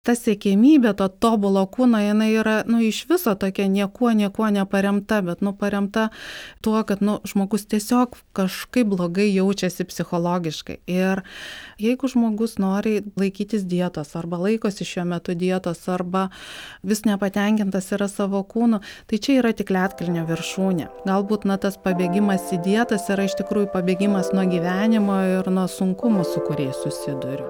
ta siekėmybė, to tobulo kūno, jinai yra, iš viso tokia niekuo neparemta, bet, paremta tuo, kad, žmogus tiesiog kažkaip blogai jaučiasi psichologiškai. Ir jeigu žmogus nori laikytis dietos, arba laikosi šiuo metu dietos, arba vis nepatenkintas yra savo kūnu, tai čia yra tik ledkalnio viršūnė. Galbūt, tas pabėgimas į dietas yra iš tikrųjų pabėgimas nuo gyvenimo ir nuo sunkumų, su kuriais susiduriu.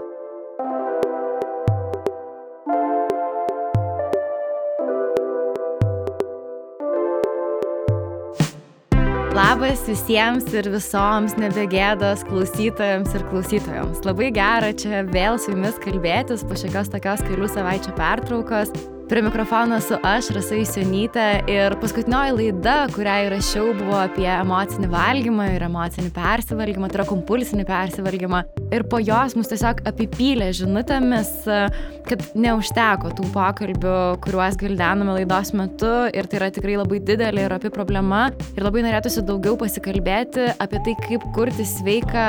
Labas visiems ir visoms nebegėdos klausytojams ir klausytojoms. Labai gera čia vėl su jumis kalbėtis po šiokios tokios kelių savaičių pertraukos. Prie mikrofono esu aš, Rasa Jusionytė, ir paskutinioji laida, kurią įrašiau, buvo apie emocinį valgymą ir emocinį persivalgymą, tai yra kompulsinį persivalgymą. Ir po jos mus tiesiog apipylė žinutėmis, kad neužteko tų pokalbių, kuriuos gvildenome laidos metu, ir tai yra tikrai labai didelė ir opi problema. Ir labai norėtųsi daugiau pasikalbėti apie tai, kaip kurti sveiką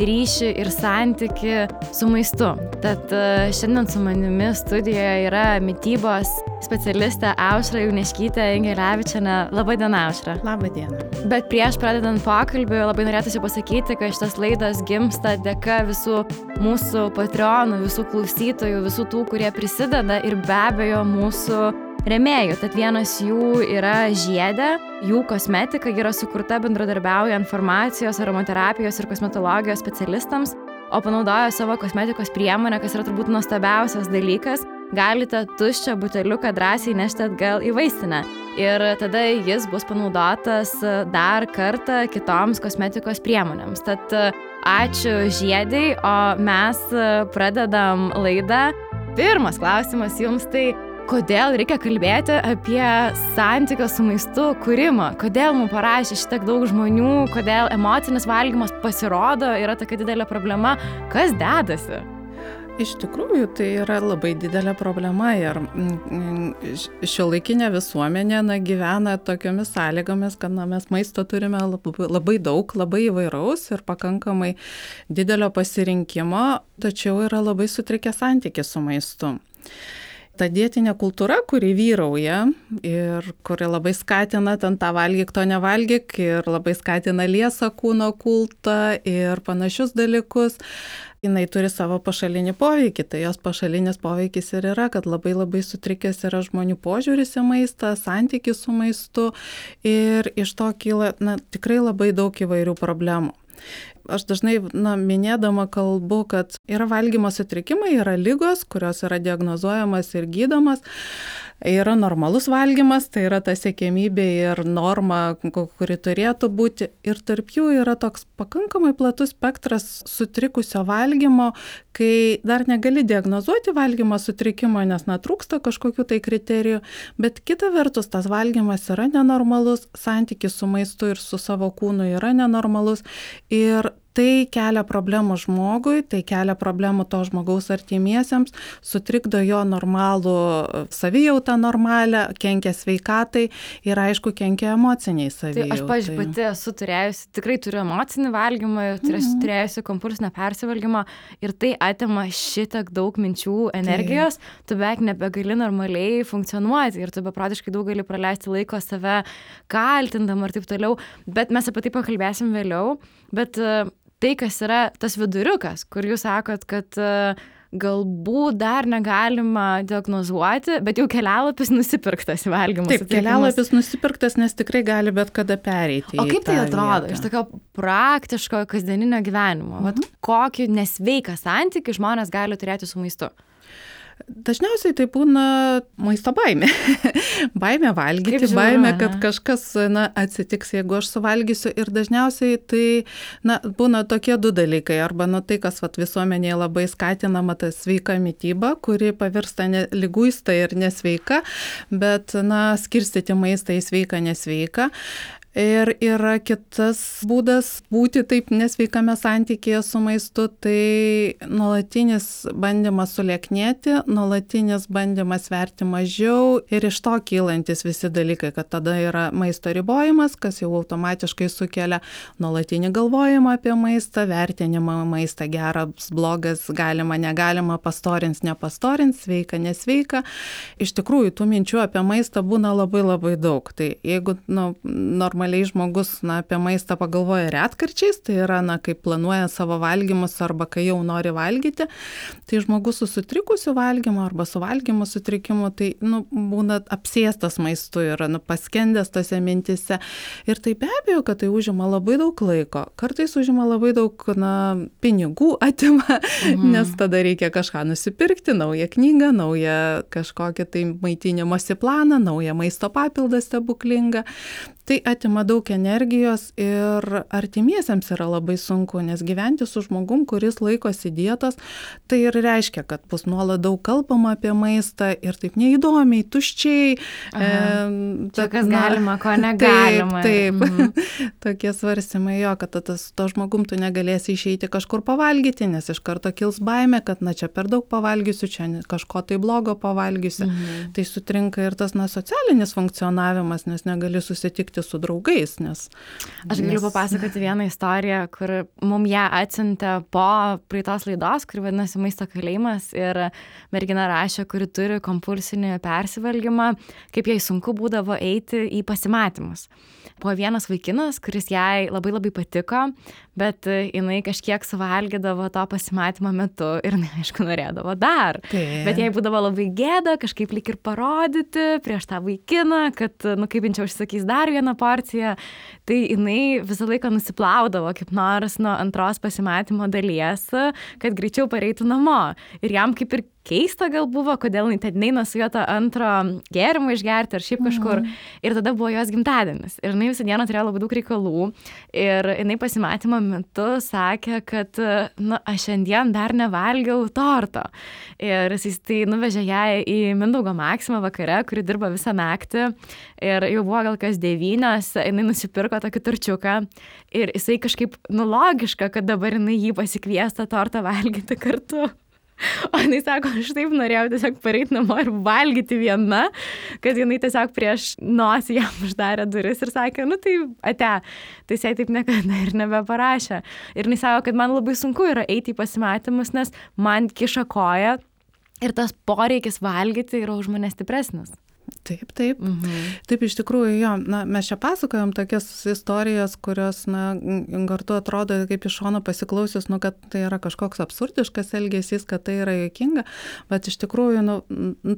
ryšį ir santyki su maistu. Tad šiandien su manimi studijoje yra mitybos specialistė Aušra Jauniškytė Ingelevičienė. Labą dieną, Aušra. Labą dieną. Bet prieš pradedant pokalbį labai norėtųsi pasakyti, kad šitas laidas gimsta dėka visų mūsų patreonų, visų klausytojų, visų tų, kurie prisideda, ir be abejo mūsų rėmėjų. Tad vienas jų yra Žiedė, jų kosmetika yra sukurta bendradarbiaujant farmacijos, aromaterapijos ir kosmetologijos specialistams, o panaudojo savo kosmetikos priemonę, kas yra turbūt nuostabiausias dalykas. Galite tuščią buteliuką drąsiai nešti atgal į vaistinę. Ir tada jis bus panaudotas dar kartą kitoms kosmetikos priemonėms. Tad ačiū Žiedei, o mes pradedam laidą. Pirmas klausimas jums, tai kodėl reikia kalbėti apie santykio su maistu kūrimą? Kodėl mums parašė šitiek daug žmonių? Kodėl emocinis valgymas pasirodo yra tokia didelė problema? Kas dedasi? Iš tikrųjų, tai yra labai didelė problema ir šiuolaikinė visuomenė gyvena tokiomis sąlygomis, kad mes maisto turime labai daug, labai įvairaus ir pakankamai didelio pasirinkimo, tačiau yra labai sutrikęs santykis su maistu. Ta dietinė kultūra, kuri vyrauja ir kuri labai skatina ten tą valgyk, to nevalgyk, ir labai skatina liesą kūno kultą ir panašius dalykus, jinai turi savo pašalinį poveikį. Tai jos pašalinis poveikis ir yra, kad labai sutrikęs yra žmonių požiūris į maistą, santykis su maistu, ir iš to kyla tikrai labai daug įvairių problemų. Aš dažnai minėdama kalbu, kad yra valgymo sutrikimai, yra ligos, kurios yra diagnozuojamas ir gydomas. Yra normalus valgymas, tai yra ta siekiamybė ir norma, kuri turėtų būti. Ir tarp jų yra toks pakankamai platus spektras sutrikusio valgymo, kai dar negali diagnozuoti valgymo sutrikimo, nes trūksta kažkokių tai kriterijų. Bet kita vertus, tas valgymas yra nenormalus, santykis su maistu ir su savo kūnu yra nenormalus. Ir tai kelia problemų žmogui, tai kelia problemų to žmogaus artimiesiems, sutrikdo jo normalų savijautą normalią, kenkia sveikatai ir aišku kenkia emociniai savijautai. Tai aš, pavyzdžiui, pati esu turėjusi, tikrai turiu emocinį valgymą, turėjusi kompulsinę persivalgymą, ir tai atima šitiek daug minčių, energijos, tu beveik nebegali normaliai funkcionuoti ir tu beprotiškai daug gali praleisti laiko save kaltindama ir taip toliau, bet mes apie tai pakalbėsim vėliau. Bet tai, kas yra tas viduriukas, kur jūs sakot, kad galbūt dar negalima diagnozuoti, bet jau kelialapis nusipirktas į valgymo sutrikimus. Taip, kelialapis nusipirktas, nes tikrai gali bet kada pereiti. O kaip tai atrodo iš tokio praktiško kasdieninio gyvenimo? Vat kokį nesveiką santykį žmonės gali turėti su maistu? Dažniausiai tai būna maisto baimė. Baimė valgyti, baimė, kad kažkas atsitiks, jeigu aš suvalgysiu. Ir dažniausiai tai būna tokie du dalykai. Arba tai, kas visuomenėje labai skatinama, ta sveika mityba, kuri pavirsta liguista ir nesveika, bet skirstyti maistą į sveiką, nesveiką. Ir yra kitas būdas būti taip nesveikame santykėje su maistu, tai nuolatinis bandymas sulieknėti, nuolatinis bandymas sverti mažiau ir iš to kylantis visi dalykai, kad tada yra maisto ribojimas, kas jau automatiškai sukelia nuolatinį galvojimą apie maistą, vertinimą maistą geras, blogas, galima, negalima, pastorins, nepastorins, sveika, nesveika. Iš tikrųjų, tų minčių apie maistą būna labai labai daug. Tai jeigu normaliai žmogus apie maistą pagalvoja retkarčiais, tai yra, kaip planuoja savo valgymus arba kai jau nori valgyti, tai žmogus su sutrikusiu valgymu arba su valgymo sutrikimu, tai būna apsėstas maistu ir paskendęs tose mintise. Ir tai be abejo, kad tai užima labai daug laiko. Kartais užima labai daug pinigų atima, nes tada reikia kažką nusipirkti, naują knygą, naują kažkokį tai maitinimosi planą, naują maisto papildą stebuklingą. Tai atima daug energijos ir artimiesiems yra labai sunku, nes gyventi su žmogum, kuris laikosi dietos, tai ir reiškia, kad bus nuolat daug kalbama apie maistą ir taip neįdomiai, tuščiai. Čia kas galima, ko negalima. Taip. Tokie svarstymai jo, kad to žmogum tu negalėsi išeiti kažkur pavalgyti, nes iš karto kils baimė, kad čia per daug pavalgysiu, čia kažko tai blogo pavalgysiu. Tai sutrinka ir tas socialinis funkcionavimas, nes negali susitikti su draugais. Aš galiu papasakoti vieną istoriją, kur mum ją atsiuntė po praeitos laidos, kuri vadinasi Maisto kalėjimas, ir mergina rašė, kuri turi kompulsinį persivalgymą, kaip jai sunku būdavo eiti į pasimatymus. Buvo vienas vaikinas, kuris jai labai labai patiko, bet jinai kažkiek suvalgydavo to pasimatymo metu ir aišku norėdavo dar. Bet jai būdavo labai gėda kažkaip lyg ir parodyti prieš tą vaikiną, kad, kaip jin čia užsakys dar vieną porciją, tai jinai visą laiką nusiplaudavo kaip nors nuo antros pasimatymo dalies, kad greičiau pareitų namo. Ir jam kaip ir keista gal buvo, kodėl jinai ten neina su juo tą antro gėrimą išgerti ar šiaip kažkur. Ir tada buvo jos gimtadienis. Ir jinai visą dieną turėjo labai daug reikalų. Ir jinai pasimatymo metu sakė, kad, aš šiandien dar nevalgiau torto. Ir jis tai nuvežė ją į Mindaugo Maksimą vakare, kuri dirba visą naktį. Ir jau buvo gal kas 9, jinai nusipirko tokį torčiuką. Ir jisai kažkaip, logiška, kad dabar jinai jį pasikvies tą tortą valgyti kartu. O jinai sako, aš taip norėjau tiesiog pareiti namo ir valgyti viena, kad jinai tiesiog prieš nosį jam uždarė duris ir sakė, tai ate. Tai jisai taip niekada ir nebeparašė. Ir jinai sako, kad man labai sunku yra eiti į pasimatymus, nes man kiša koja ir tas poreikis valgyti yra už mane stipresnis. Taip. Taip, iš tikrųjų, jo, mes čia pasakojom tokias istorijas, kurios, kartu atrodo kaip iš šono pasiklausius, kad tai yra kažkoks absurdiškas elgesys, kad tai yra juokinga, bet iš tikrųjų,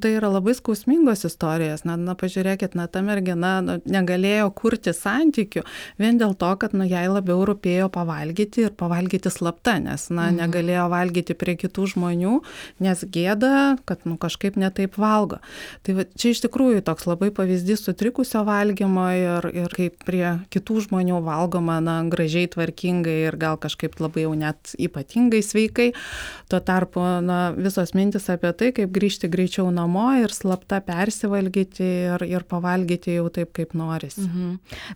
tai yra labai skausmingos istorijos. Pažiūrėkit, ta mergina negalėjo kurti santykių vien dėl to, kad, jai labiau rūpėjo pavalgyti ir pavalgyti slapta, nes, negalėjo valgyti prie kitų žmonių, nes gėda, kad, kažkaip netaip valgo. Tai čia iš tikrųjų toks labai pavyzdys sutrikusio valgymo ir kaip prie kitų žmonių valgoma, gražiai, tvarkingai ir gal kažkaip labai jau net ypatingai sveikai. Tuo tarpu, visos mintis apie tai, kaip grįžti greičiau namo ir slapta persivalgyti ir pavalgyti jau taip, kaip norisi.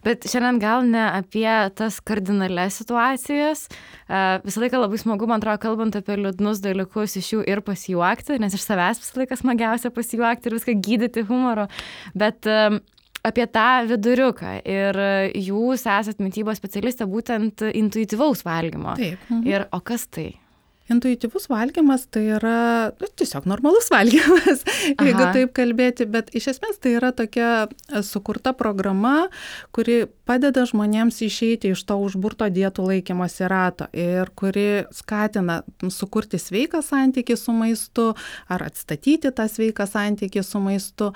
Bet šiandien gal ne apie tas kardinalias situacijas. Visą laiką labai smagu, man atrodo, kalbant apie liūdnus dalykus, iš jų ir pasijuokti, nes iš savęs visą laiką smagiausia pasijuokti ir viską gydyti humoro. Bet apie tą viduriuką ir jūs esat mitybos specialistė būtent intuityvaus valgymo. Taip. Ir o kas tai? Intuityvus valgymas tai yra tiesiog normalus valgymas, jeigu taip kalbėti, bet iš esmės tai yra tokia sukurta programa, kuri padeda žmonėms išeiti iš to užburto dietų laikymosi rato ir kuri skatina sukurti sveiką santykį su maistu ar atstatyti tą sveiką santykį su maistu.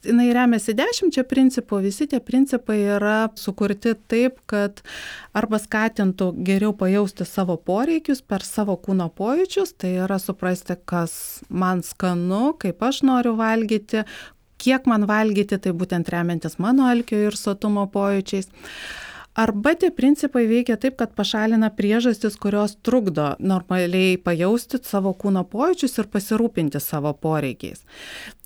Jinai remiasi 10 principų, visi tie principai yra sukurti taip, kad arba skatintų geriau pajausti savo poreikius per savo kūno pojūčius, tai yra suprasti, kas man skanu, kaip aš noriu valgyti, kiek man valgyti, tai būtent remiantis mano alkio ir sotumo pojūčiais. Arba tie principai veikia taip, kad pašalina priežastis, kurios trukdo normaliai pajausti savo kūno pojūčius ir pasirūpinti savo poreikiais.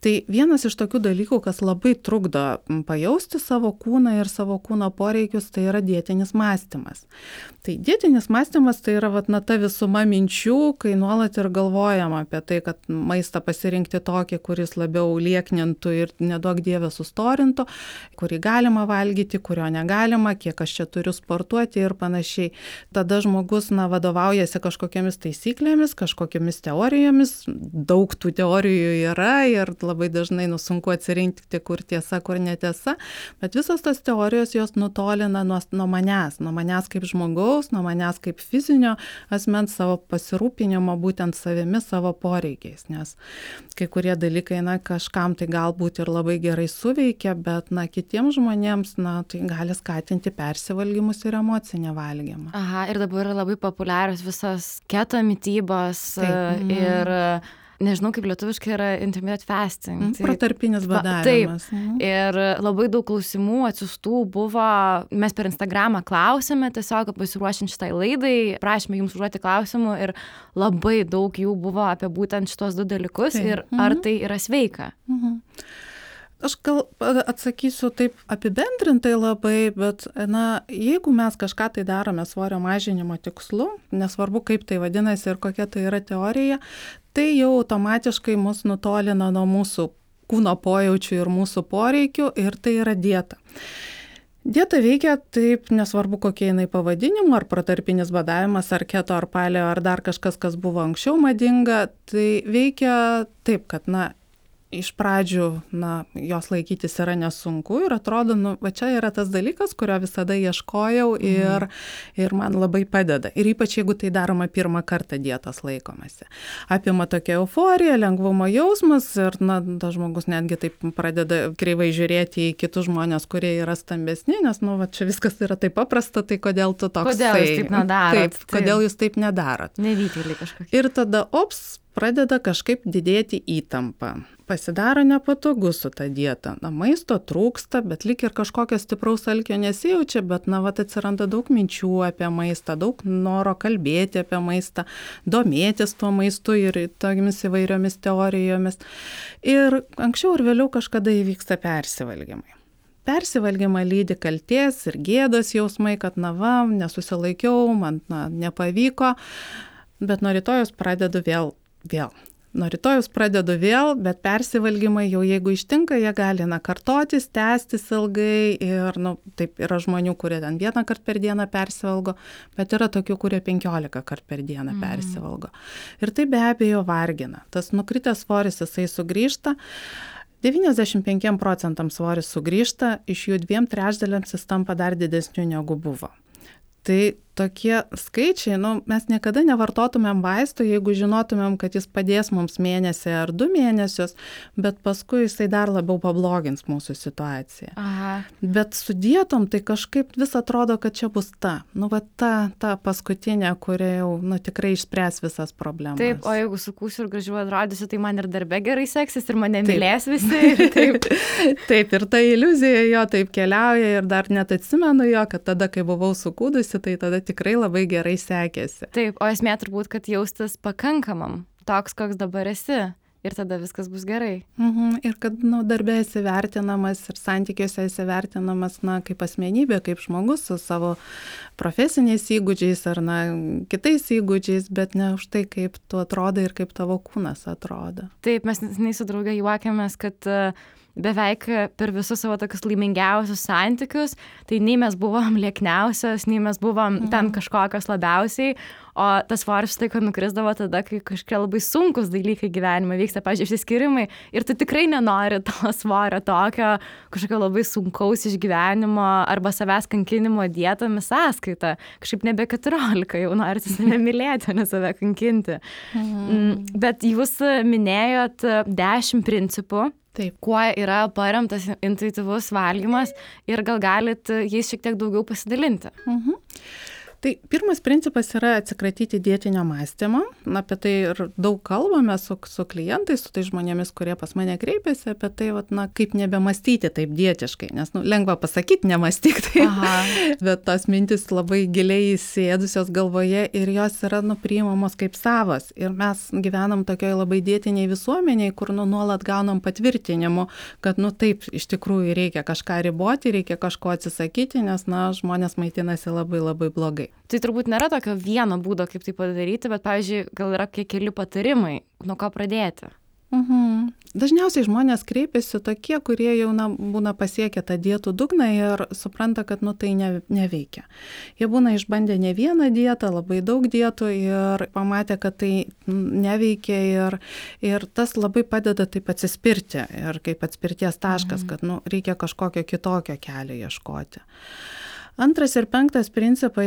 Tai vienas iš tokių dalykų, kas labai trukdo pajausti savo kūną ir savo kūno poreikius, tai yra dietinis mąstymas. Tai dietinis mąstymas tai yra ta visuma minčių, kai nuolat ir galvojama apie tai, kad maistą pasirinkti tokį, kuris labiau lieknintų ir neduok dievę sustorintų, kurį galima valgyti, kurio negalima, kiek aš čia turiu sportuoti ir panašiai. Tada žmogus vadovaujasi kažkokiamis taisyklėmis, kažkokiamis teorijomis, daug tų teorijų yra ir labai dažnai sunku atsirinkti, kur tiesa, kur netiesa, bet visos tos teorijos jos nutolina nuo manęs kaip žmogaus, nuo manęs kaip fizinio asmens, savo pasirūpinimo būtent savimi, savo poreikiais, nes kai kurie dalykai, kažkam tai galbūt ir labai gerai suveikia, bet kitiems žmonėms, tai gali skatinti persivalgymus ir emocinį valgymą. Aha, ir dabar yra labai populiarios visos keto mitybos ir nežinau, kaip lietuviškai yra intermittent fasting. Protarpinis badavimas. Taip. Ir labai daug klausimų atsiųstų buvo, mes per Instagramą klausėme, tiesiog pasiruošiant šitai laidai, prašėme jums užduoti klausimų ir labai daug jų buvo apie būtent šitos du dalykus ir ar tai yra sveika. Aš gal atsakysiu taip apibendrintai labai, bet jeigu mes kažką tai darome svorio mažinimo tikslu, nesvarbu kaip tai vadinasi ir kokia tai yra teorija, tai jau automatiškai mus nutolina nuo mūsų kūno pojaučių ir mūsų poreikių ir tai yra dieta. Dieta veikia taip, nesvarbu kokie jinai pavadinimu, ar protarpinis badavimas, ar keto, ar paleo, ar dar kažkas, kas buvo anksčiau madinga, tai veikia taip, kad iš pradžių, jos laikytis yra nesunku ir atrodo, va čia yra tas dalykas, kurio visada ieškojau ir man labai padeda. Ir ypač jeigu tai daroma pirmą kartą dietos laikomasi. Apima tokia euforija, lengvumo jausmas ir, tas žmogus netgi taip pradeda kreivai žiūrėti į kitus žmonės, kurie yra stambesni, nes, va čia viskas yra taip paprasta, tai kodėl tu toks? Kodėl jūs taip nedarot? Taip, kodėl jūs taip nedarot? Nevykėliai kažkokie. Ir tada, pradeda kažkaip didėti įtampa. Pasidaro nepatogu su ta dieta. Maisto trūksta, bet lyg ir kažkokio stipraus alkio nesijaučia, bet atsiranda daug minčių apie maistą, daug noro kalbėti apie maistą, domėtis tuo maistu ir tomis įvairiomis teorijomis. Ir anksčiau ir vėliau kažkada įvyksta persivalgymai. Persivalgymą lydi kaltės ir gėdos jausmai, kad nesusilaikiau, man nepavyko, bet nuo rytojus pradedu vėl. Nuo rytojus pradedu vėl, bet persivalgymai jau jeigu ištinka, jie gali kartotis, tęstis ilgai ir taip yra žmonių, kurie ten 1 kartą per dieną persivalgo, bet yra tokių, kurie 15 kartų per dieną persivalgo. Ir tai be abejo vargina. Tas nukritęs svoris jisai sugrįžta. 95% svoris sugrįžta, iš jų 2/3 jis tampa dar didesniu negu buvo. Tai tokie skaičiai, mes niekada nevartotumėm vaistų, jeigu žinotumėm, kad jis padės mums mėnesį ar 2 mėnesius, bet paskui jisai dar labiau pablogins mūsų situaciją. Aha. Bet su dietom tai kažkaip vis atrodo, kad čia bus ta paskutinė, kuri jau tikrai išspręs visas problemas. Taip, o jeigu sukūsiu ir gražiau atrodysiu, tai man ir darbe gerai seksis ir mane mylės visi. Taip, ir ta iliuzija jo taip keliauja ir dar net atsimenu jo, kad tada, kai buvau sukūdusi, tai tada tikrai labai gerai sekėsi. Taip, o esmė turbūt, kad jaustis pakankamam, toks, koks dabar esi, ir tada viskas bus gerai. Ir kad darbe esi vertinamas ir santykiuose esi vertinamas kaip asmenybė, kaip žmogus su savo profesiniais įgūdžiais ar kitais įgūdžiais, bet ne už tai, kaip tu atrodai ir kaip tavo kūnas atrodo. Taip, mes su drauge juokiamės, kad beveik per visus savo tokius laimingiausius santykius, tai nei mes buvom liekniausios, nei mes buvom ten kažkokios labiausiai, o tas svoris tai, kad nukrisdavo tada, kai kažkokie labai sunkus dalykai gyvenime vyksta, pavyzdžiui, išsiskyrimai, ir tu tikrai nenori to svorio tokio kažkokio labai sunkaus išgyvenimo arba savęs kankinimo dietomis sąskaita. Kažkaip nebe 14, jau norite save mylėti, o ne save kankinti. Bet jūs minėjot 10 principų. Taip. Kuo yra paremtas intuityvus valgymas ir gal galit jais šiek tiek daugiau pasidalinti? Tai pirmas principas yra atsikratyti dietinio mąstymo. Apie tai ir daug kalbame su klientais, su tai žmonėmis, kurie pas mane kreipiasi, apie tai, kaip nebemastyti taip dietiškai. Nes lengva pasakyti, nemąstyk taip, bet tos mintis labai giliai įsėdusios galvoje ir jos yra priimamos kaip savas. Ir mes gyvenam tokioje labai dietiniai visuomeniai, kur nuolat gaunam patvirtinimu, kad taip, iš tikrųjų reikia kažką riboti, reikia kažko atsisakyti, nes žmonės maitinasi labai labai blogai. Tai turbūt nėra tokio vieno būdo, kaip tai padaryti, bet, pavyzdžiui, gal yra keli patarimai, nuo ko pradėti? Dažniausiai žmonės kreipiasi tokie, kurie jau būna pasiekę tą dietų dugną ir supranta, kad tai neveikia. Jie būna išbandę ne vieną dietą, labai daug dietų ir pamatė, kad tai neveikia ir tas labai padeda taip atsispirti ir kaip atspirties taškas, kad reikia kažkokio kitokio kelio ieškoti. Antras ir penktas principas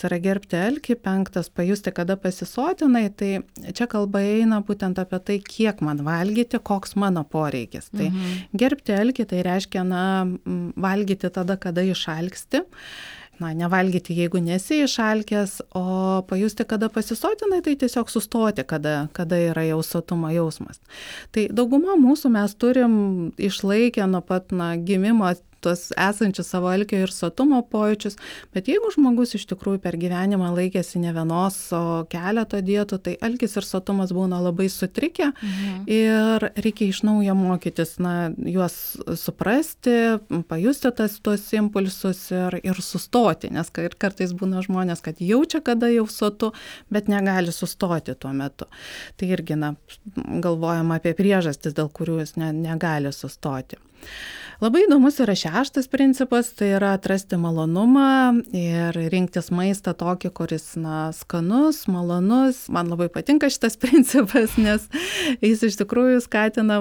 yra gerbti alkį, penktas pajusti, kada pasisotinai, tai čia kalba eina būtent apie tai, kiek man valgyti, koks mano poreikis. Tai gerbti alkį tai reiškia, valgyti tada, kada išalksti. Nevalgyti, jeigu nesi išalkęs, o pajusti, kada pasisotinai, tai tiesiog sustoti, kada yra jau sotumo jausmas. Tai dauguma mūsų mes turim išlaikę nuo pat gimimo tuos esančius savo alkio ir sotumo pojūčius, bet jeigu žmogus iš tikrųjų per gyvenimą laikėsi ne vienos, o keleto dietų, tai alkis ir sotumas būna labai sutrikę ir reikia iš naujo mokytis, juos suprasti, pajusti tuos impulsus ir sustoti, nes kartais būna žmonės, kad jaučia, kada jau sotu, bet negali sustoti tuo metu. Tai irgi galvojama apie priežastis, dėl kurių jis negali sustoti. Labai įdomus yra šeštas principas, tai yra atrasti malonumą ir rinktis maistą tokį, kuris skanus, malonus. Man labai patinka šitas principas, nes jis iš tikrųjų skatina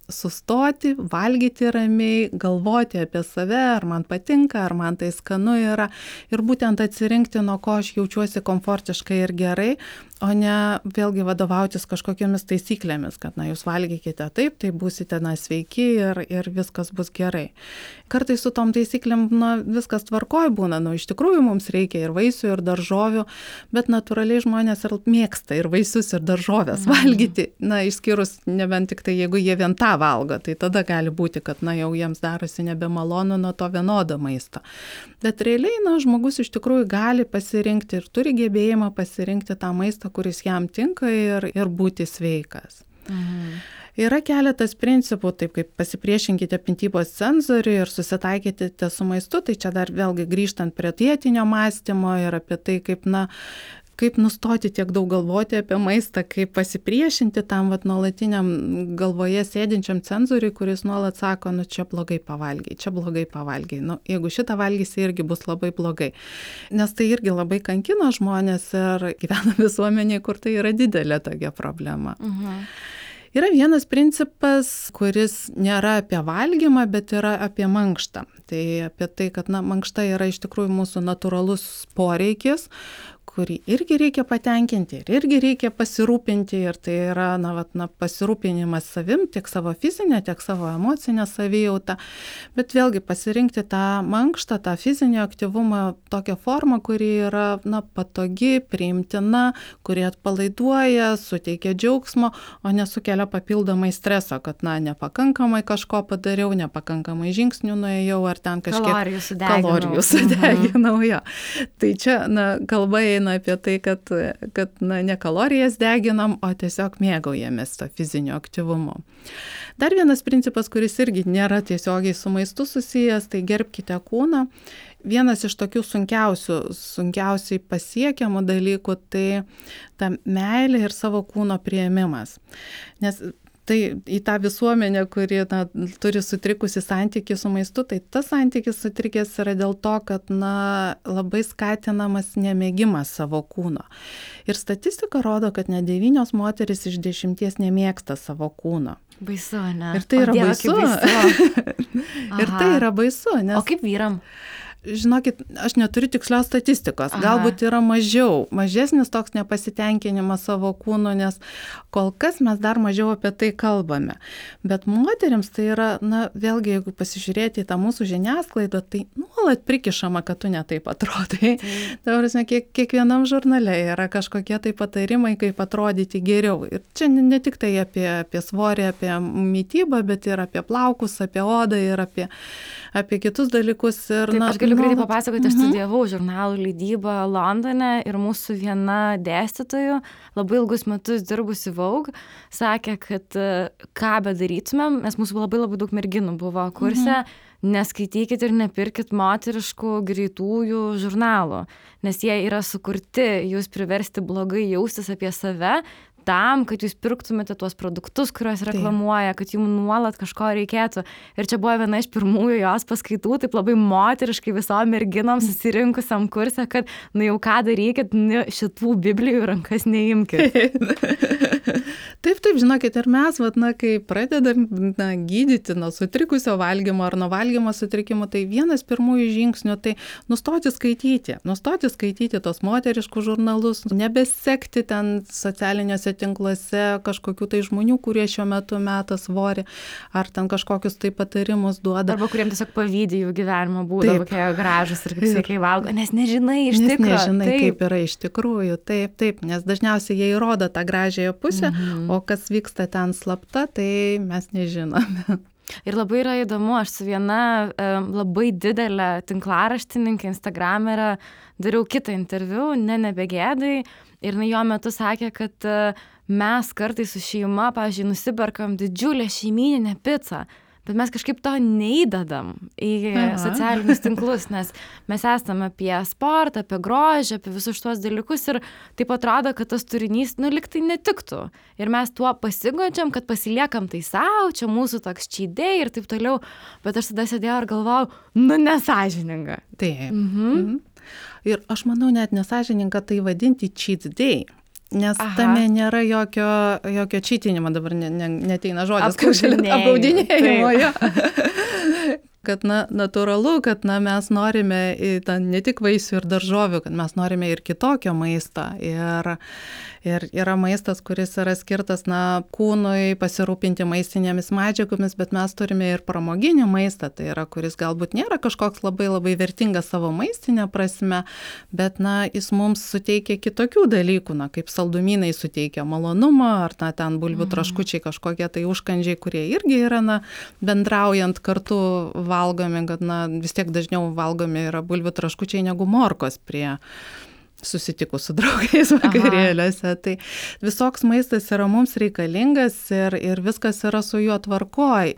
sustoti, valgyti ramiai, galvoti apie save, ar man patinka, ar man tai skanu yra ir būtent atsirinkti, nuo ko aš jaučiuosi komfortiškai ir gerai, o ne vėlgi vadovautis kažkokiamis taisyklėmis, kad jūs valgykite taip, tai būsite sveiki ir viskas bus gerai. Kartais su tom taisyklėm viskas tvarkoj būna, iš tikrųjų mums reikia ir vaisių, ir daržovių, bet natūraliai žmonės ir mėgsta ir vaisius, ir daržovės valgyti, išskyrus nebent tik tai, jeigu jie vien tą valgo, tai tada gali būti, kad jau jiems darosi nebemalonu nuo to vienodo maisto. Bet realiai, žmogus iš tikrųjų gali pasirinkti ir turi gebėjimą pasirinkti tą maistą, kuris jam tinka ir būti sveikas. Yra keletas principų, taip kaip pasipriešinkite mitybos cenzoriui ir susitaikykite su maistu, tai čia dar vėlgi grįžtant prie dietinio mąstymo ir apie tai, kaip nustoti tiek daug galvoti apie maistą, kaip pasipriešinti tam nuolatiniam galvoje sėdinčiam cenzoriui, kuris nuolat sako, čia blogai pavalgiai, čia blogai pavalgiai. Jeigu šitą valgysi, irgi bus labai blogai. Nes tai irgi labai kankina žmonės ir gyvena visuomenėje, kur tai yra didelė tokia problema. Yra vienas principas, kuris nėra apie valgymą, bet yra apie mankštą. Tai apie tai, kad mankšta yra iš tikrųjų mūsų natūralus poreikis, kurį irgi reikia patenkinti ir irgi reikia pasirūpinti. Ir tai yra pasirūpinimas savim, tiek savo fizinę, tiek savo emocinę savijautą. Bet vėlgi pasirinkti tą mankštą, tą fizinį aktyvumą, tokią formą, kuri yra patogi, priimtina, kuri atpalaiduoja, suteikia džiaugsmo, o nesukelia papildomai streso, kad nepakankamai kažko padariau, nepakankamai žingsnių nuėjau, ar ten kažkiek kalorijų sudeginau. Tai čia kalba eina apie tai, kad ne kalorijas deginam, o tiesiog mėgaujamės to fizinio aktyvumo. Dar vienas principas, kuris irgi nėra tiesiogiai su maistu susijęs, tai gerbkite kūną. Vienas iš tokių sunkiausiai pasiekiamų dalykų, tai ta meilė ir savo kūno priėmimas. Nes tai į tą visuomenę, kuri turi sutrikusi santykį su maistu, tai tas santykis sutrikęs yra dėl to, kad labai skatinamas nemėgimas savo kūno. Ir statistika rodo, kad net 9 moteris iš 10 nemėgsta savo kūno. Baisu, ne? Ir tai yra baisu. Ir tai yra baisu. O kaip vyram? Žinokit, aš neturiu tikslios statistikos. Galbūt yra mažesnis toks nepasitenkinimas savo kūnu, nes kol kas mes dar mažiau apie tai kalbame. Bet moterims tai yra, vėlgi, jeigu pasižiūrėti į tą mūsų žiniasklaidą, tai nuolat prikišama, kad tu netaip atrodai. Tai prasme, kiekvienam žurnale yra kažkokie tai patarimai, kaip atrodyti geriau. Ir čia ne tik tai apie svorį, apie mitybą, bet ir apie plaukus, apie odą ir apie kitus dalykus. Ir, Taip, aš galiu greitai papasakoti, aš studijavau žurnalų leidybą Londone ir mūsų viena dėstytojų, labai ilgus metus dirbusi Vogue, sakė, kad ką bedarytumėm, nes mūsų labai daug merginų buvo kurse, neskaitykit ir nepirkit moteriškų greitųjų žurnalų, nes jie yra sukurti jūs priversti blogai jaustis apie save, tam, kad jūs pirktumėte tuos produktus, kuriuos reklamuoja, kad jums nuolat kažko reikėtų. Ir čia buvo viena iš pirmųjų jos paskaitų, taip labai moteriškai visom merginom susirinkusiam kurse, kad jau ką darykit, šitų biblijų rankas neimkit. Taip, žinokit, ir mes, kai pradedam gydyti nuo sutrikusio valgymo ar nuo valgymo sutrikimų, tai vienas pirmųjų žingsnių, tai nustoti skaityti tos moteriškus žurnalus, nebesekti ten socialiniuose tinkluose kažkokių tai žmonių, kurie šiuo metu meta svorį, ar ten kažkokius tai patarimus duoda. Arba kuriems tiesiog pavydė jų gyvenimo būdą, kokie gražus ir kaip sveikai valgo, nes nežinai iš tikrųjų. Nežinai, kaip yra iš tikrųjų. Taip, nes dažniausiai jie įrodo tą gražiąją pusę, o kas vyksta ten slapta, tai mes nežinome. Ir labai yra įdomu, aš su viena labai didelė tinklaraštininkė, instagramerė, dariau kitą interviu, nebegėdai, ir jo metu sakė, kad mes kartais su šeima, pavyzdžiui, nusiperkam didžiulę šeimyninę picą, bet mes kažkaip to neįdedam į socialinius tinklus, nes mes esame apie sportą, apie grožį, apie visus šitos dalykus ir taip atrodo, kad tas turinys, lyg tai netiktų. Ir mes tuo pasigodžiam, kad pasiliekam tai savo, čia mūsų toks cheat day ir taip toliau, bet aš tada sėdėjau ir galvojau, nesąžininga. Taip. Ir aš manau, net nesąžininga tai vadinti cheat day. Nes tame nėra jokio čytinimo, dabar neteina žodis, apgaudinėjimo. Kad natūralu, kad mes norime ne tik vaisių ir daržovių, kad mes norime ir kitokio maisto. Ir yra maistas, kuris yra skirtas kūnui pasirūpinti maistinėmis medžiagomis, bet mes turime ir pramoginį maistą, tai yra, kuris galbūt nėra kažkoks labai vertingas savo maistinė prasme, bet jis mums suteikia kitokių dalykų, kaip saldumynai suteikia malonumą, ar ten bulvių traškučiai kažkokie tai užkandžiai, kurie irgi yra bendraujant kartu valgomi, kad vis tiek dažniau valgomi yra bulvių traškučiai negu morkos prie susitikus su draugais vakarėliuose. Tai visoks maistas yra mums reikalingas ir viskas yra su juo tvarkoj.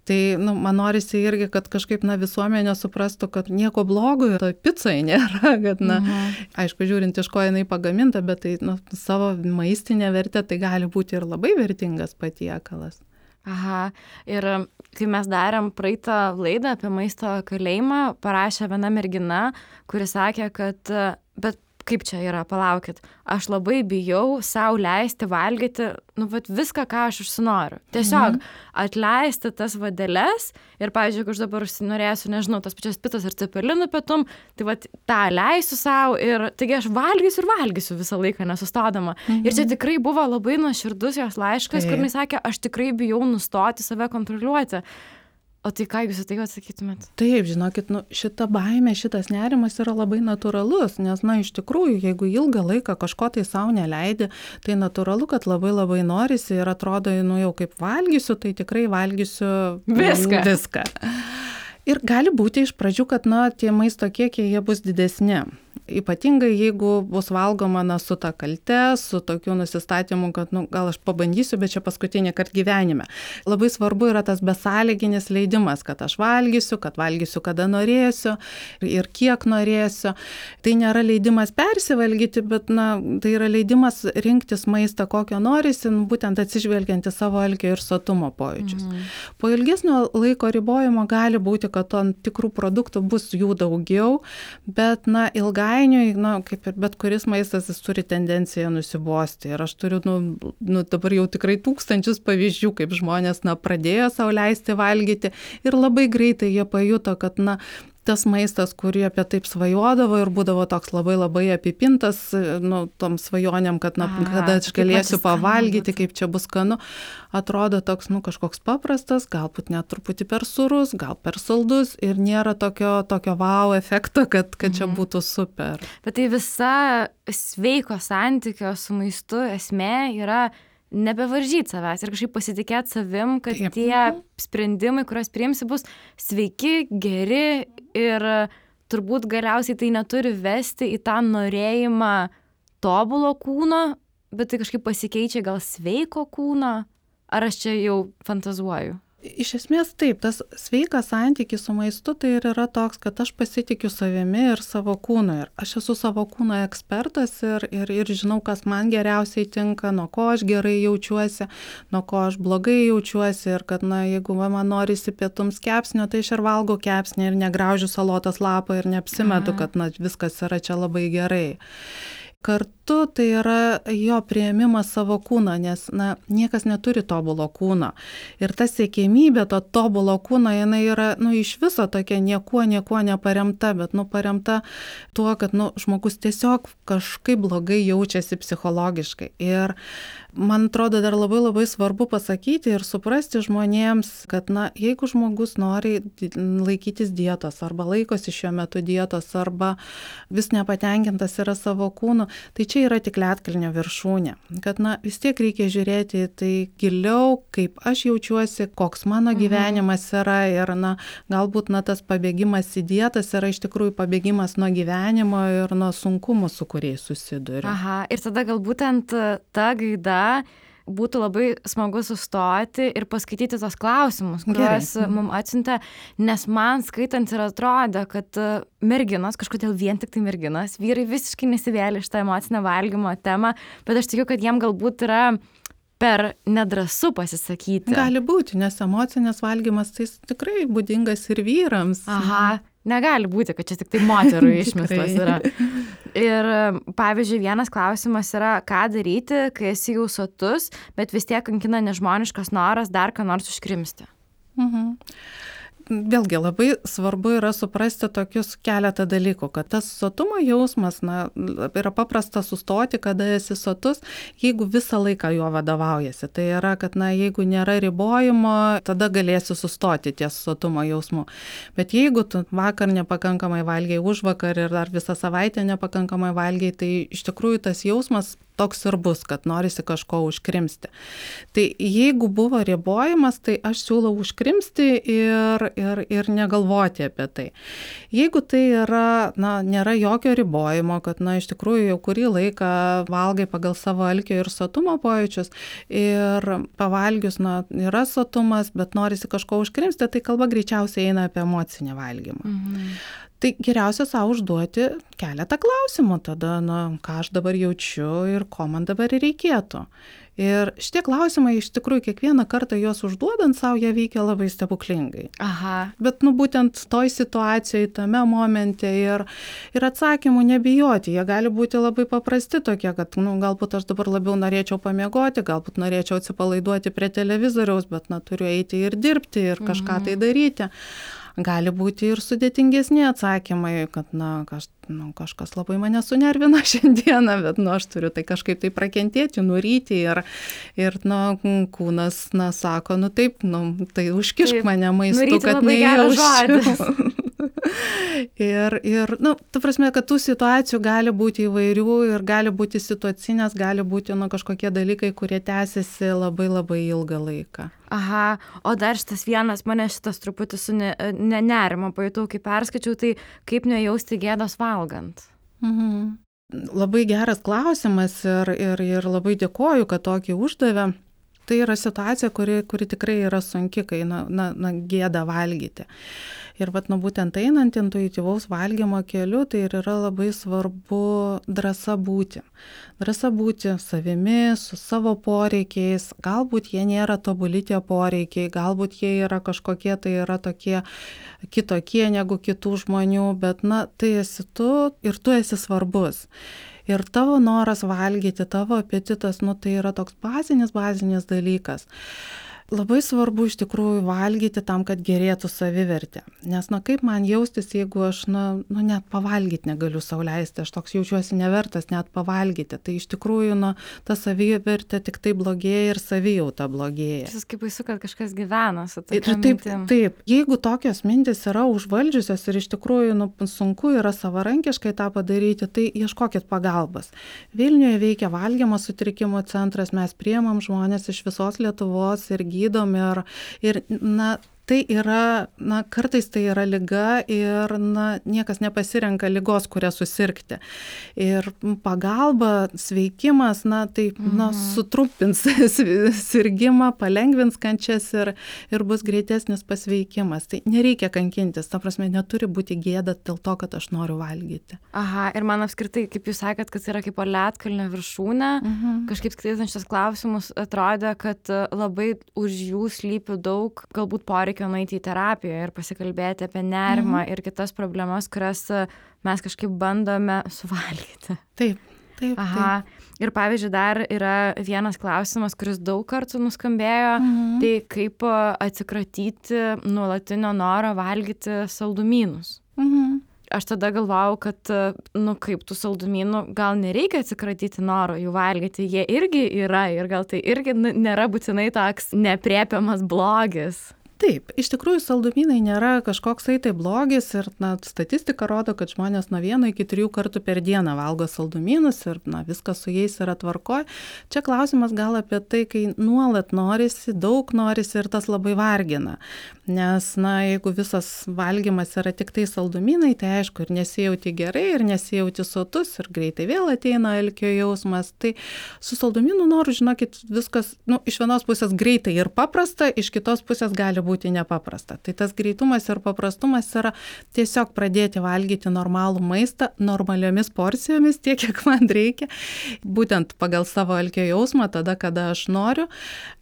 Tai man norisi irgi, kad kažkaip visuomenė suprastų, kad nieko blogo toj picai nėra, kad aišku, žiūrint iš ko jinai pagaminta, bet tai savo maistinė vertė tai gali būti ir labai vertingas patiekalas. Ir kai mes darėm praeitą laidą apie maisto kalėjimą, parašė viena mergina, kuri sakė, kad bet kaip čia yra, palaukit, aš labai bijau sau leisti valgyti, viską, ką aš užsinoriu. Tiesiog atleisti tas vadeles ir, pavyzdžiui, jeigu aš dabar užsinorėsiu, nežinau, tas pačias pitas ar cepelinų pietum, tai tą leisiu sau ir taigi aš valgysiu visą laiką nesustodama. Ir čia tikrai buvo labai nuoširdus jos laiškas, kur jis sakė, aš tikrai bijau nustoti save kontroliuoti. O tai ką jūs į tai atsakytumėt? Taip, žinokit, šita baimė, šitas nerimas yra labai natūralus, nes, iš tikrųjų, jeigu ilgą laiką kažko tai savo neleidi, tai natūralu, kad labai norisi ir atrodo, jau kaip valgysiu, tai tikrai valgysiu viską. Ir gali būti iš pradžių, kad, tie maisto kiekiai, jie bus didesni. Ypatingai, jeigu bus valgoma su ta kalte, su tokiu nusistatymu, kad gal aš pabandysiu, bet čia paskutinį kartą gyvenime. Labai svarbu yra tas besąlyginis leidimas, kad aš valgysiu kada norėsiu ir kiek norėsiu. Tai nėra leidimas persivalgyti, bet tai yra leidimas rinktis maistą, kokio norisi, būtent atsižvelgiant į savo alkio ir sotumo pojūčius. Po ilgesnio laiko ribojimo gali būti, kad tam tikrų produktų bus jų daugiau, bet ilgainiui, kaip ir bet kuris maistas, jis turi tendenciją nusibosti. Ir aš turiu, dabar jau tikrai tūkstančius pavyzdžių, kaip žmonės, pradėjo sau leisti valgyti ir labai greitai jie pajuto, kad, tas maistas, kurį apie taip svajodavo ir būdavo toks labai labai apipintas, tom svajonėm, kad kada aš galėsiu pavalgyti, kaip čia bus skanu, atrodo toks, kažkoks paprastas, galbūt net truputį per sūrus, gal per saldus ir nėra tokio wow efekto, kad čia būtų super. Bet tai visa sveiko santykio su maistu esmė yra nebevaržyti savęs ir kažkaip pasitikėti savim, kad tie sprendimai, kuriuos priimsi, bus sveiki, geri ir turbūt galiausiai tai neturi vesti į tą norėjimą tobulo kūno, bet tai kažkaip pasikeičia gal sveiko kūno, ar aš čia jau fantazuoju? Iš esmės taip, tas sveikas santykis su maistu tai ir yra toks, kad aš pasitikiu savimi ir savo kūnu. Ir aš esu savo kūno ekspertas ir žinau, kas man geriausiai tinka, nuo ko aš gerai jaučiuosi, nuo ko aš blogai jaučiuosi. Ir kad, jeigu man norisi pietums kepsnio, tai aš ir valgau kepsnį ir negraužiu salotos lapą ir neapsimetu, kad viskas yra čia labai gerai. Kartu tai yra jo priėmimas savo kūno, nes niekas neturi tobulo kūno. Ir ta siekėmybė to tobulo kūno, jinai yra iš viso tokia niekuo neparemta, bet paremta tuo, kad žmogus tiesiog kažkaip blogai jaučiasi psichologiškai. Ir man atrodo dar labai labai svarbu pasakyti ir suprasti žmonėms, kad jeigu žmogus nori laikytis dietos arba laikosi šiuo metu dietos arba vis nepatenkintas yra savo kūnu, tai čia yra tik ledkalnio viršūnė. Kad vis tiek reikia žiūrėti tai giliau, kaip aš jaučiuosi, koks mano gyvenimas yra ir galbūt tas pabėgimas į dietas yra iš tikrųjų pabėgimas nuo gyvenimo ir nuo sunkumų, su kuriais susiduriu. Aha, ir tada gal būtent ta gaida būtų labai smagu sustoti ir paskaityti tos klausimus, kuriuos mums atsiuntė, nes man skaitant ir atrodė, kad merginos, kažkodėl vien tik tai merginos, vyrai visiškai nesivėlė iš tą emocinę valgymo temą, bet aš tikiu, kad jiem galbūt yra per nedrąsu pasisakyti. Gali būti, nes emocinis valgymas tai tikrai būdingas ir vyrams. Aha, negali būti, kad čia tik tai moterų išmislas yra. Ir pavyzdžiui, vienas klausimas yra, ką daryti, kai esi jau sotus, bet vis tiek kankina nežmoniškas noras dar ką nors užkrimsti. Vėlgi labai svarbu yra suprasti tokius keletą dalykų, kad tas sotumo jausmas, yra paprasta sustoti, kada esi sotus, jeigu visą laiką juo vadovaujasi. Tai yra, kad jeigu nėra ribojimo, tada galėsi sustoti ties sotumo jausmu. Bet jeigu tu vakar nepakankamai valgiai, užvakar ir dar visą savaitę nepakankamai valgiai, tai iš tikrųjų tas jausmas toks ir bus, kad norisi kažko užkrimsti. Tai jeigu buvo ribojimas, tai aš siūlau užkrimsti ir negalvoti apie tai. Jeigu tai yra, nėra jokio ribojimo, kad, iš tikrųjų jau kurį laiką valgai pagal savo alkio ir sotumo pojūčius ir pavalgius, yra sotumas, bet norisi kažko užkrimsti, tai kalba greičiausiai eina apie emocinį valgymą. Tai geriausia savo užduoti keletą klausimų tada, ką aš dabar jaučiu ir ko man dabar reikėtų. Ir šitie klausimai iš tikrųjų kiekvieną kartą juos užduodant savo, jie veikia labai stebuklingai. Aha. Bet būtent toj situacijoje, tame momente ir atsakymų nebijoti. Jie gali būti labai paprasti tokie, kad galbūt aš dabar labiau norėčiau pamiegoti, galbūt norėčiau atsipalaiduoti prie televizoriaus, bet turiu eiti ir dirbti ir kažką tai daryti. Gali būti ir sudėtingesni atsakymai, kad kažkas labai mane sunervina šiandieną, bet aš turiu tai kažkaip tai prakentėti, nuryti ir kūnas sako, taip, tai užkišk mane maistu, kad nejausčiau. Ir ta prasme, kad tų situacijų gali būti įvairių ir gali būti situacinės, gali būti kažkokie dalykai, kurie tęsiasi labai labai ilgą laiką. Aha, o dar mane šitas truputį su nerimo pajutau, kai perskaičiau, tai kaip nejausti gėdos valgant? Labai geras klausimas ir labai dėkoju, kad tokį uždavė. Tai yra situacija, kuri tikrai yra sunki, kai gėda valgyti. Ir būtent einant intuityvaus valgymo keliu, tai ir yra labai svarbu drąsa būti. Drąsa būti savimi, su savo poreikiais. Galbūt jie nėra tobuli tie poreikiai, galbūt jie yra kažkokie, tai yra tokie kitokie negu kitų žmonių, bet tai esi tu ir tu esi svarbus. Ir tavo noras valgyti, tavo apetitas, tai yra toks bazinis dalykas. Labai svarbu iš tikrųjų valgyti tam, kad gerėtų savivertė. Nes, kaip man jaustis, jeigu aš, net pavalgyti negaliu sau leisti, aš toks jaučiuosi nevertas net pavalgyti. Tai iš tikrųjų, ta savivertė tik tai blogėja ir savijauta blogėja. Šis kaip baisu, kad kažkas gyvena su tokia mintim. Taip, jeigu tokios mintis yra užvaldžiusios ir iš tikrųjų sunku yra savarankiškai tą padaryti, tai ieškokit pagalbos. Vilniuje veikia valgymo sutrikimo centras, mes priimam žmonės iš visos Lietuvos ir gydom ir tai yra, kartais tai yra liga ir niekas nepasirenka ligos, kurią susirgti. Ir pagalba, sveikimas, sutrumpins sirgimą, palengvins kančias ir bus greitesnis pasveikimas. Tai nereikia kankintis, ta prasme, neturi būti gėda dėl to, kad aš noriu valgyti. Aha, ir man apskritai, kaip jūs sakėt, kad yra kaip ledkalnio viršūnė, kažkaip skaitant šitas klausimus atrodė, kad labai už jų slypi daug, galbūt poreikio nueiti į terapiją ir pasikalbėti apie nerimą ir kitas problemas, kurias mes kažkaip bandome suvalgyti. Taip. Aha. Ir pavyzdžiui, dar yra vienas klausimas, kuris daug kartų nuskambėjo, tai kaip atsikratyti nuolatinio noro valgyti saldumynus. Aš tada galvojau, kad, kaip tų saldumynų, gal nereikia atsikratyti noro jų valgyti, jie irgi yra ir gal tai irgi nėra būtinai toks nepriepiamas blogis. Taip, iš tikrųjų saldumynai nėra kažkoksai tai blogis ir statistika rodo, kad žmonės nuo 1 iki 3 kartų per dieną valgo saldumynus ir viskas su jais yra tvarkoj. Čia klausimas gal apie tai, kai nuolat norisi, daug norisi ir tas labai vargina. Nes, jeigu visas valgymas yra tik tai saldumynai, tai aišku, ir nesijauti gerai, ir nesijauti sotus, ir greitai vėl ateina alkio jausmas. Tai su saldumynų noru, žinokit, viskas, iš vienos pusės greitai ir paprasta, iš kitos pusės gali būti nepaprasta. Tai tas greitumas ir paprastumas yra tiesiog pradėti valgyti normalų maistą normaliomis porcijomis, tiek, kiek man reikia, būtent pagal savo alkio jausmą, tada, kada aš noriu.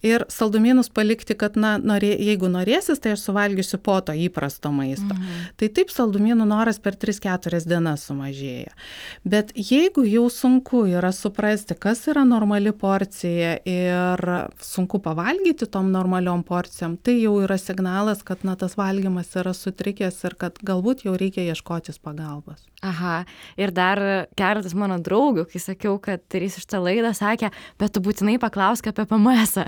Ir saldumynus palikti, kad, jeigu norėsis, tai aš suvalgysiu po to įprasto maisto. Tai taip saldumynų noras per 3-4 dienas sumažėja. Bet jeigu jau sunku yra suprasti, kas yra normali porcija ir sunku pavalgyti tom normaliom porcijom, tai jau yra signalas, kad tas valgymas yra sutrikęs ir kad galbūt jau reikia ieškotis pagalbos. Aha, ir dar keletas mano draugių, kai sakiau, kad darysiu šitą laidą, sakė, bet tu būtinai paklausk apie PMS-ą,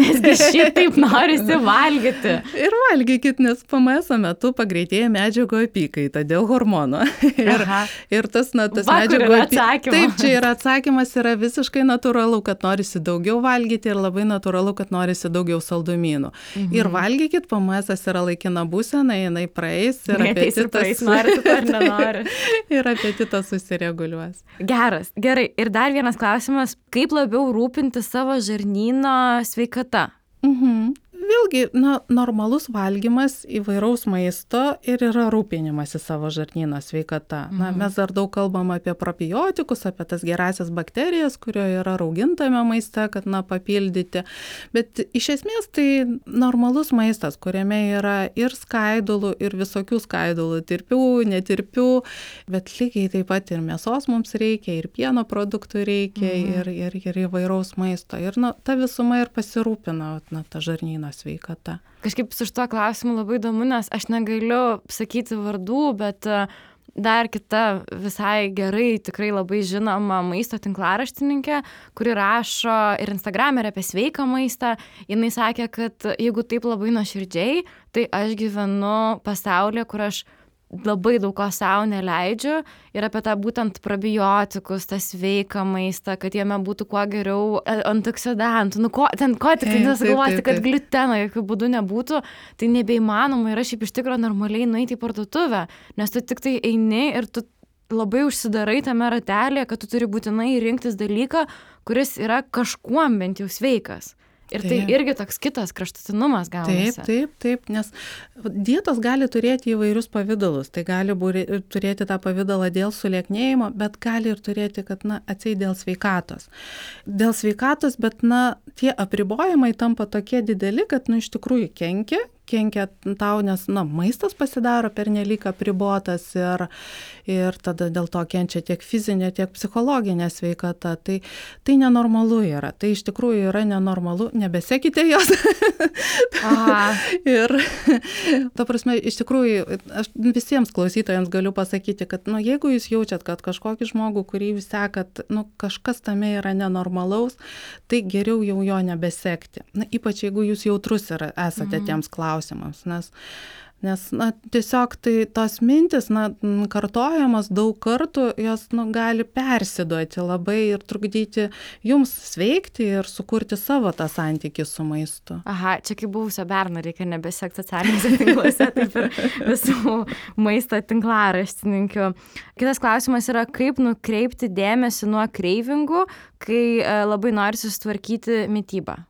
nesgi šitaip norisi valgyti. Ir valgykit, nes PMS-o metu pagreitėja medžiagų apykaita dėl hormono. Ir tas medžiagų apykaita. Taip, čia yra atsakymas, yra visiškai natūralu, kad norisi daugiau valgyti ir labai natūralu, kad norisi daugiau saldumynų. Ir valgykit, PMS-as yra laikina būsena, jinai praeis ir apetitas. Nori tu ar nenori. Ir apetitas susireguliuos. Gerai. Ir dar vienas klausimas, kaip labiau rūpinti savo žarnyno sveikata? Vėlgi, normalus valgymas įvairaus maisto ir yra rūpinimas į savo žarnyno sveikata. Mes dar daug kalbam apie probiotikus, apie tas gerasias bakterijas, kurio yra raugintame maiste, kad papildyti. Bet iš esmės tai normalus maistas, kuriame yra ir skaidulų, ir visokių skaidulų, tirpių, netirpių, bet lygiai taip pat ir mėsos mums reikia, ir pieno produktų reikia, ir įvairaus maisto. Ir ta visuma ir pasirūpina ta žarnyno sveikata. Kažkaip su šituo klausimu labai įdomu, nes aš negaliu sakyti vardų, bet dar kita visai gerai, tikrai labai žinoma maisto tinklaraštininkė, kuri rašo ir Instagram ir apie sveiką maistą. Jinai sakė, kad jeigu taip labai nuoširdžiai, tai aš gyvenu pasaulyje, kur aš labai daug ko sau neleidžiu ir apie tą būtent probiotikus, tą sveiką maistą, kad jame būtų kuo geriau antioksidantų, ko tik nesugalvoti, kad gliuteno jokių būdų nebūtų, tai nebeįmanoma yra šiaip iš tikro normaliai nueiti į parduotuvę, nes tu tik tai eini ir tu labai užsidarai tame ratelėje, kad tu turi būtinai rinktis dalyką, kuris yra kažkuom bent jau sveikas. Ir tai irgi toks kitas kraštutinumas gaunasi. Taip, nes dietos gali turėti įvairius pavidalus. Tai gali turėti tą pavidalą dėl sulieknėjimo, bet gali ir turėti, kad atseit dėl sveikatos. Dėl sveikatos, bet tie apribojimai tampa tokie dideli, kad iš tikrųjų kenkia kenkia tau, nes maistas pasidaro pernelyg apribotas ir tada dėl to kenčia tiek fizinė, tiek psichologinė sveikata. Tai nenormalu yra. Tai iš tikrųjų yra nenormalu. Nebesekite jos. Ir ta prasme, iš tikrųjų, aš visiems klausytojams galiu pasakyti, kad jeigu jūs jaučiat, kad kažkokį žmogų, kurį jūs sekat, kažkas tame yra nenormalaus, tai geriau jau jo nebesekti. Ypač jeigu jūs jautrus esate tiems klausimams, nes tiesiog tai tos mintis, kartojamos daug kartų, jos gali persiduoti labai ir trukdyti jums sveikti ir sukurti savo tą santykį su maistu. Aha, čia kaip buvusio berno reikia nebesekti socialiniuose tinkluose, taip ir visų maisto tinklaraštininkių. Kitas klausimas yra, kaip nukreipti dėmesį nuo kreivingų, kai labai nori susitvarkyti mitybą.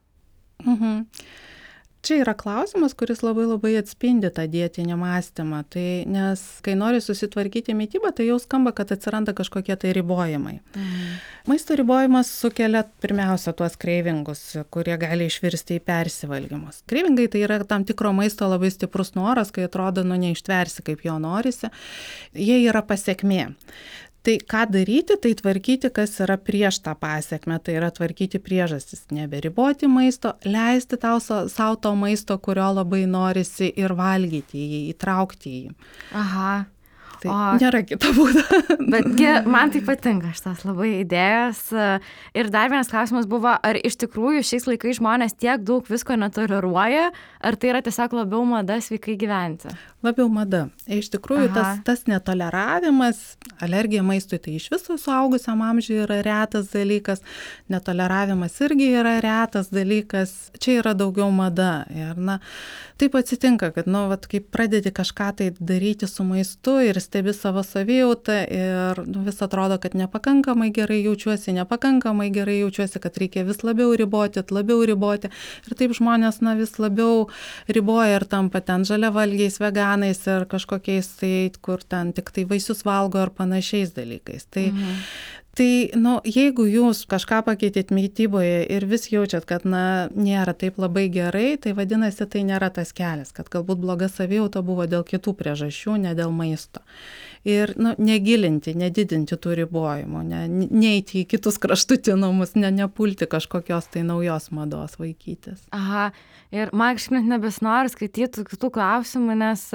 Čia yra klausimas, kuris labai atspindi tą dietinį mąstymą. Nes kai nori susitvarkyti mitybą, tai jau skamba, kad atsiranda kažkokie tai ribojimai. Maisto ribojimas sukelia pirmiausia tuos kreivingus, kurie gali išvirsti į persivalgymus. Kreivingai tai yra tam tikro maisto labai stiprus noras, kai atrodo, neištversi, kaip jo norisi. Jie yra pasekmė. Tai ką daryti, tai tvarkyti, kas yra prieš tą pasekmę, tai yra tvarkyti priežastis, neberiboti maisto, leisti savo to maisto, kurio labai norisi ir valgyti jį, įtraukti jį. Aha. Tai nėra kito būdo. Betgi man tai patinka šitas labai idėjas. Ir dar vienas klausimas buvo, ar iš tikrųjų šiais laikais žmonės tiek daug visko netoleruoja, ar tai yra tiesiog labiau mada sveikai gyventi? Labiau mada. Iš tikrųjų, tas netoleravimas, alergija maistui, tai iš viso suaugusiam amžiui yra retas dalykas, netoleravimas irgi yra retas dalykas, čia yra daugiau mada. Ir taip atsitinka, kad kai pradedi kažką tai daryti su maistu ir stebi savo savijautą ir vis atrodo, kad nepakankamai gerai jaučiuosi, kad reikia vis labiau riboti. Ir taip žmonės vis labiau riboja ir tampa ten žaliavalgiais, veganais ir kažkokiais tai, kur ten tik tai vaisius valgo ar panašiais dalykais. Tai, jeigu jūs kažką pakeitėt mityboje ir vis jaučiat, kad, nėra taip labai gerai, tai vadinasi, tai nėra tas kelias, kad galbūt bloga savijauta buvo dėl kitų priežasčių, ne dėl maisto. Ir, negilinti, nedidinti tų ribojimų, neiti į kitus kraštutinumus, nepulti kažkokios tai naujos mados vaikytis. Aha, ir man kažkaip net nebesinori skaityti kitų klausimų, nes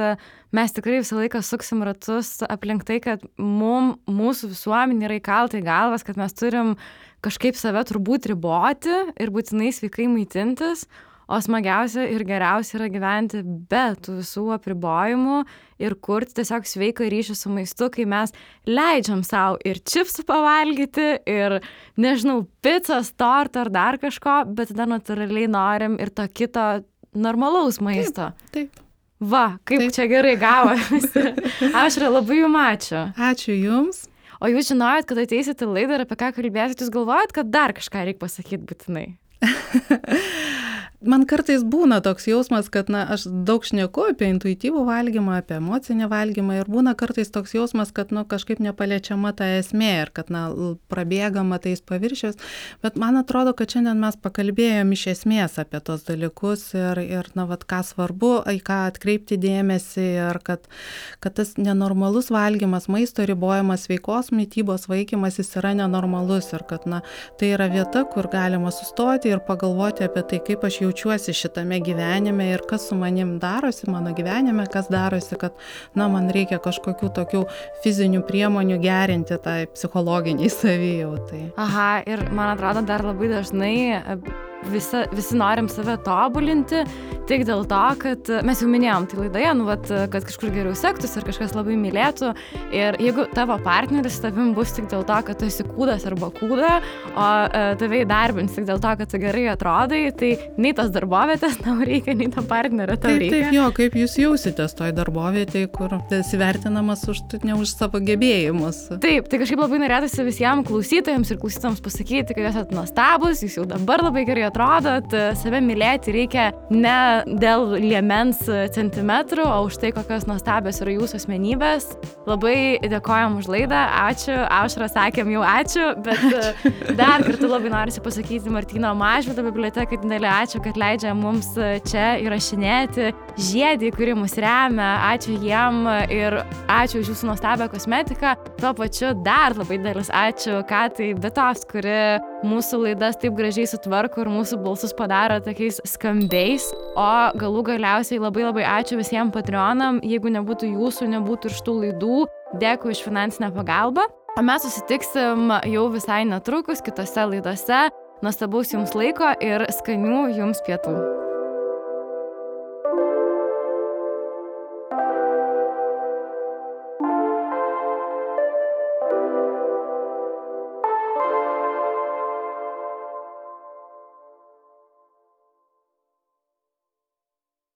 mes tikrai visą laiką suksim ratus aplink tai, kad mūsų visuomenė yra įkalta į galvas, kad mes turim kažkaip save turbūt riboti ir būtinai sveikai maitintis, o smagiausia ir geriausia yra gyventi be tų visų apribojimų ir kurti tiesiog sveiką ryšį su maistu, kai mes leidžiam savo ir čipsų pavalgyti, ir, nežinau, picos, torto ar dar kažko, bet tada natūraliai norim ir to kito normalaus maisto. Taip. Va, kaip taip. Čia gerai gavosi. Aušra, labai jums ačiū. Ačiū jums. O jūs žinojot, kad ateisit į laidą ir apie ką kalbėsit, jūs galvojat, kad dar kažką reikia pasakyti būtinai? Man kartais būna toks jausmas, kad aš daug šneku apie intuityvų valgymą, apie emocinį valgymą ir būna kartais toks jausmas, kad kažkaip nepaliečiama ta esmė ir kad prabėgama tais paviršius, bet man atrodo, kad šiandien mes pakalbėjom iš esmės apie tos dalykus ir ką svarbu, į ką atkreipti dėmesį ir kad tas nenormalus valgymas, maisto ribojimas, sveikos mitybos vaikymas, jis yra nenormalus ir kad tai yra vieta, kur galima sustoti ir pagalvoti apie tai, kaip aš jaučiuosi šitame gyvenime ir kas su manim darosi mano gyvenime, kas darosi, kad man reikia kažkokių tokių fizinių priemonių gerinti tai psichologiniai savijautai. Aha, ir man atrodo dar labai dažnai visi norim save tobulinti tik dėl to, kad mes jau minėjom tai laidoje, kad kažkur geriau sektųsi ir kažkas labai mylėtų. Ir jeigu tavo partneris tavim bus tik dėl to, kad tu esi kūdas arba kūda, o tave įdarbins tik dėl to, kad tu gerai atrodai, tai nei tos darbovietės tau reikia, nei to partnerio tau reikia. Taip, jo, kaip jūs jausitės toj darbovietėje, kur esi vertinamas ne už savo gebėjimus. Taip, tai kažkaip labai norėtųsi visiems klausytojams ir klausytojams pasakyti, kad jūs esate nuostabus, jūs jau dabar labai gerai atrodot. Save mylėti reikia ne dėl liemens centimetrų, o už tai, kokios nuostabios yra jūsų asmenybės. Labai dėkojam už laidą, ačiū. Aušra, sakėm jau ačiū, bet dar kartą labai norisi pasakyti Martyno Mažvydo bibliotekai didelį ačiū, kad leidžia mums čia įrašinėti. Žiedį, kuri mus remia, ačiū jiem ir ačiū už jūsų nuostabią kosmetiką. Tuo pačiu dar labai didelis ačiū Katai Bitos, kuri mūsų laidas taip gražiai sutvarko ir mūsų balsus padaro tokiais skambiais. O galų galiausiai labai ačiū visiems Patreonam. Jeigu nebūtų jūsų, nebūtų ir šitų laidų. Dėkui už finansinę pagalbą. O mes susitiksim jau visai netrukus kitose laidose. Nuostabaus jums laiko ir skanių jums pietų.